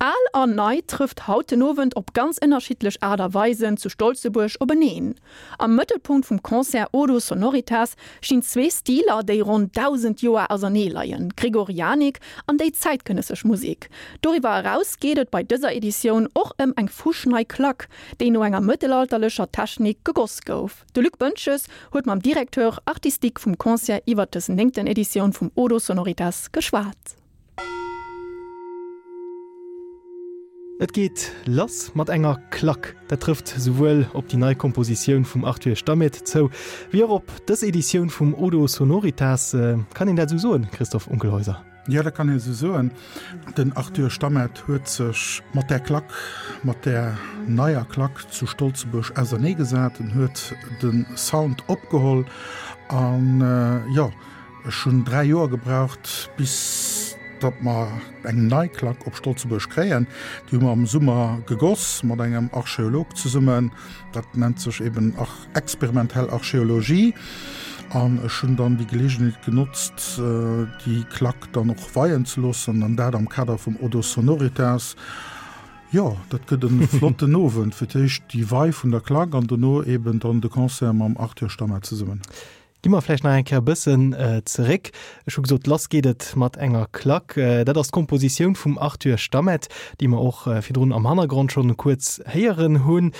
Al an Nei trëfft haut den Owend op ganz ënnerschiddlech Aart a Weisen zu Stolzebuerg openeen. Am Mëttelpunkt vum Concert Odo Sonoritas stinn zwee Stiler, déi ronn 1.000 Joer ausernee leien, d'Gregorianik an déi zäitgenëssesch Musek. Doriwwer eraus geet et bei dëser Editioun och ëm eng fuschnei Klack, déi no enger mëttelalterlecher Technik gegoss gouf. De Luc Boentges huet mam Directeur artistique vum Concert iwwer dës néngten Editioun vum Odo Sonoritas geschwat. Et geet lass mat enger Klack. Dat trëfft souwuel op déi nei Kompositioun vum Arthur Stamet zou, wéi och op dës Editioun vum Odo Sonoritas. Kann een dat esou soen, Christoph Unkelhäuser? Jo, dat kann een esou soen. Den Arthur Stamet huet sech mat där Klack, mat där neier Klack zu Stolzebuerg auserneegesat. En huet de Sound opgeholl an, jo, Ech hunn 3 Joer gebraucht, bis datt mer eng nei Klack op Stolzebuerg kréien. Déi hu mer am Summer gegoss mat engem Archeolog zesummen. Dat nennt sech eben experimentell Archeologie. An ech hunn dann déi Geleegenheet genotzt, déi Klack dann och weien ze loossen, an dat am Kader vum Odo Sonoritas. Jo, dat gëtt e flotten Owend. Fir d'éischt déi Wei vun der Klack an dono eben dann de Concert mam Arthur Stammet zesummen. Gi mer vläicht nach eng Kéier e bëssen zeréck. Ech hu gesot, lass geet et mat enger Klack. Dat ass d'Kompositioun vum Arthur Stammet, déi mer och virdrun am Hannergrond schonn kuerz héieren hunn.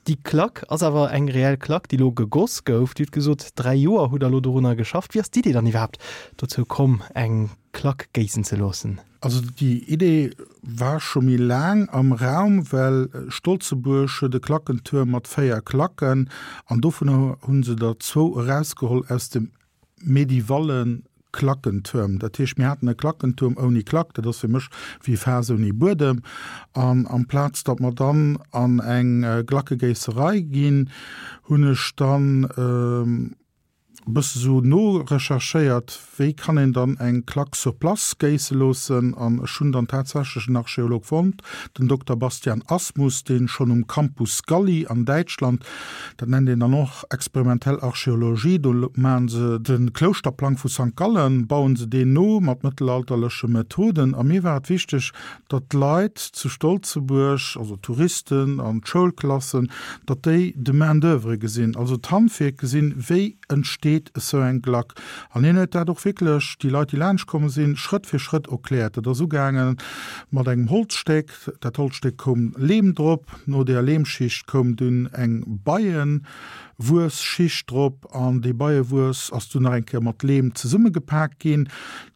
Déi Klack ass awer eng reell Klack, déi elo gegoss gouf. Dir hutt gesot, 3 Joer hutt Der elo dorunner geschafft. Wéi ass d'Idee dann iwwerhaapt dozou komm, eng Klack géissen ze loossen? Also déi Idee war scho méi laang am Raum, well Stolzebuerg huet e Klackentuerm mat 4 Klacken an dovunner hu se der zwou erausgeholl aus dem medievalle Klackentuerm. Dat heescht, mir haten e Klackentuerm ouni Klack, dat ass fir mech wéi e Faass ouni Buedem. An amplaz datt mer dann an eng Glackegéisserei ginn, hunn ech dann, e bësse sou norecherchéiert, wéi kann een dann eng Klack sur place géisse loossen an ech hunn dann tatsächlech en Archeolog fonnt, den Dokter Bastian Asmus, deen schonn um Campus Galli an Däitschland, dat nennt een dann och experimentell Archeologie, do maachen se de Klouschterplang vu Sankt Gallen, bauen se deen no mat mëttelalterleche Methoden a mir war et wichteg, datt d'Leit zu Stolzebuerg, also d'Touristen an d'Schoulklassen, datt déi de Main d'oeuvre gesinn, also d'Handwierk gesinn, wéi entsteet esou eng Glack. An hien huet dat och wierklech déi Leit, déi laanscht komm sinn, Schrëtt fir Schrëtt erkläert. Dat ass ugaange mat engem Holzstéck, dat Holzstéck koum Leem drop, no där Leemschicht koum dunn eng Beiewuesschicht drop an déi Beiewuess ass dunn nach eng Kéier mat Leem zesummegepak ginn.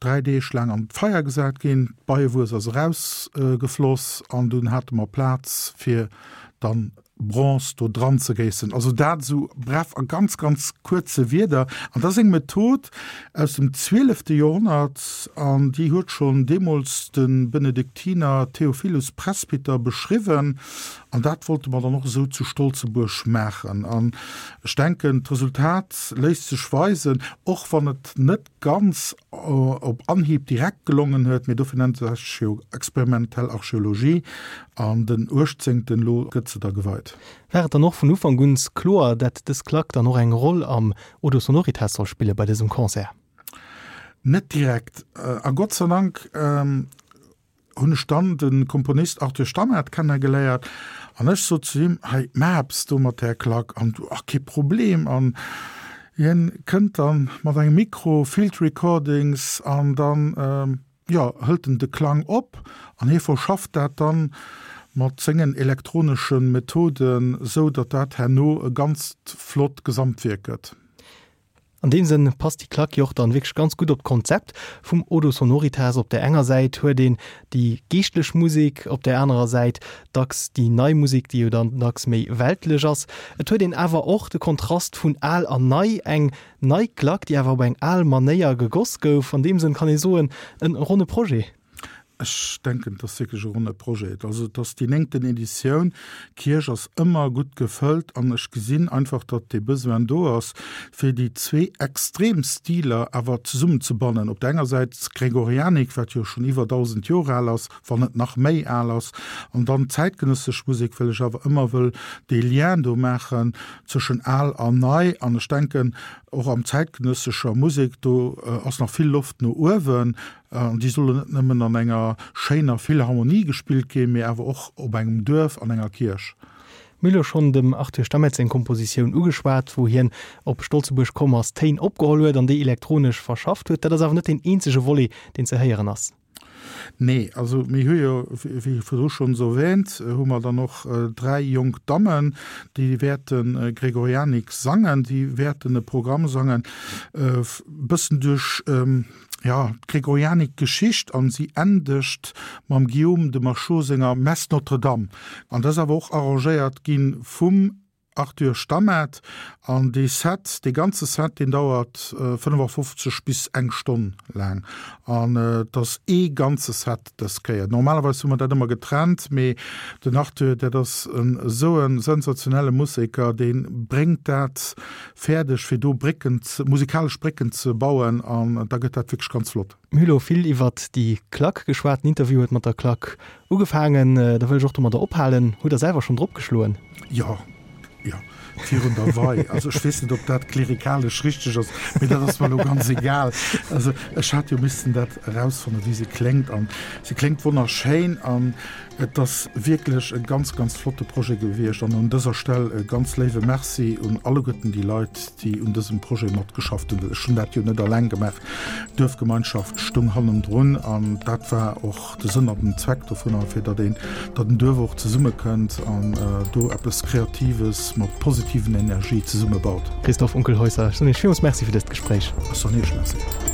3 Deeg laang an d'Feier gesat ginn, d'Beiewuess ass erausgefloss an dunn hate mer Plaz fir dann Bronze do dran ze géissen. Also dat esou bref a ganz ganz kuerze Wierder. An dat ass eng Method aus dem zwielefte Joerhonnert an déi huet schonn deemools de Benediktiner Theophilus Presbyter beschriwwen an dat wollte mer dann och esou zu Stolzebuerg maachen. An ech denken d'Resultat léisst sech weisen, och wann et net ganz op Anhieb direkt gelongen huet, mee dofir nennt se sech jo experimentell Archeologie, an den 18. Elo gëtt se da geweit. War et dann och vun Ufank un kloer, dat dës Klack dann och eng Roll am Odo Sonoritas soll spille bei dësem Concert? Net direkt, a Gott sei Dank hunn ech dann de Komponist Arthur Stammaert kennegeléiert an ech sot zu him, hei maach eppes do mat där Klack an du, ach kee Problem an hien kënnt dann mat engem Mikro, Field Recordings an dann, jo, hëlt en de Klang op an hie verschafft dat dann mat sengen elektronesche Methoden, sou datt dat herno e ganzt flott Gesamtwierk gëtt. An deem Sënn passt déi Klack jo och dann wierklech ganz gutt op d'Konzept vum Odo Sonoritas. Op där enger Säit huet een déi geeschtlech Musek, op där anerer Säit dacks déi nei Musek, déi jo dann dacks méi weltlech ass. Et huet een awer och de Kontrast vun al an nei, eng nei Klack, déi awer op eng al Manéier gegoss gouf. An deem Sënn kann ee soen, en ronne Projet. Ech denken, et ass wierklech e ronne Projet. Also et ass déi néngten Editioun. D'Kierch ass ëmmer gutt gefëllt an ech gesinn einfach, datt dee Besoin do ass, fir déi zwee extrem Stiler awer zesummenzebannen. Op der enger Säit d'Gregorianik, wat jo schonn iwwer 1.000 Joer al ass, wann net nach méi al ass, an dann d'zäitgenëssesch Musek, well ech awer ëmmer wëll dee Lien do maachen zwëschen al an nei. An ech denken. Och am zäitgenëssescher Musek, do ass nach vill Loft no uewen. An déi sollen net nëmmen an enger schéiner Philharmonie gespillt ginn, mee awer och op engem Duerf, an enger Kierch. Mir hu lo schonn dem Arthur Stammet seng Kompositioun ugeschwat, wou hien op Stolzebuerg komm ass, Téin opgeholl huet an déi elektronesch verschafft huet. Dat ass awer net deen eenzege Volet, deen ze héieren ass. Nee, also mir hu jo, wéi virdru schonns erwähnt, hu mer dann och 3 jonk Dammen, déi wäerte Gregorianik sangen, déi wäerten e Programm sangen, e bëssen duerch, jo, d'Gregorianik-Geschicht an si endegt mam Guillaume de Machaut senger Messe Notre-Dame. An dat ass awer och arrangéiert gi vum Arthur Stammet, An dee Set, dee ganze Set, deen dauert 55 bis eng Stonn laang. An et ass ee ganze Set dës Kéier. Normalerweis hu mer dat ëmmer getrennt, mee den Arthur, dat ass esou e sensationelle Museker, dee bréngt dat fäerdeg, fir do Brécken, musikalesch Brécken ze bauen an da gëtt dat wierklech ganz flott. Mir hu lo vill iwwert déi Klack geschwat. Den Interview huet mat der Klack ugefaangen. Da wëll ech och domadder ophalen. Hutt Der selwer schonn drop geschloen? Jo, jo, virun der Wei. Also ech weess net, ob dat klerikalesch richteg ass, mee dat ass mer elo ganz egal. Also ech hat jo missten dat erausfannen, wéi se kléngt. An se kléngt wonnerschéin. An Et ass wierklech e ganz, ganz flotte Projet gewiescht an un dëser Stell e ganz léiwe Merci un alleguerten déi Leit, déi un dësem Projet matgeschafft hunn. Ech hunn dat jo net alleng gemaach, d'Duerfgemeinschaft stoung hannendrun an dat war och de Sënn an den Zweck dovunner, fir datt een, datt en Duerf och zesummekënnt an do eppes Kreatives mat positiven Energie zesummebaut. Christoph Unkelhäusser, ech soen Iech villmools Merci fir dëst Gespréich. Ech soen Iech Merci.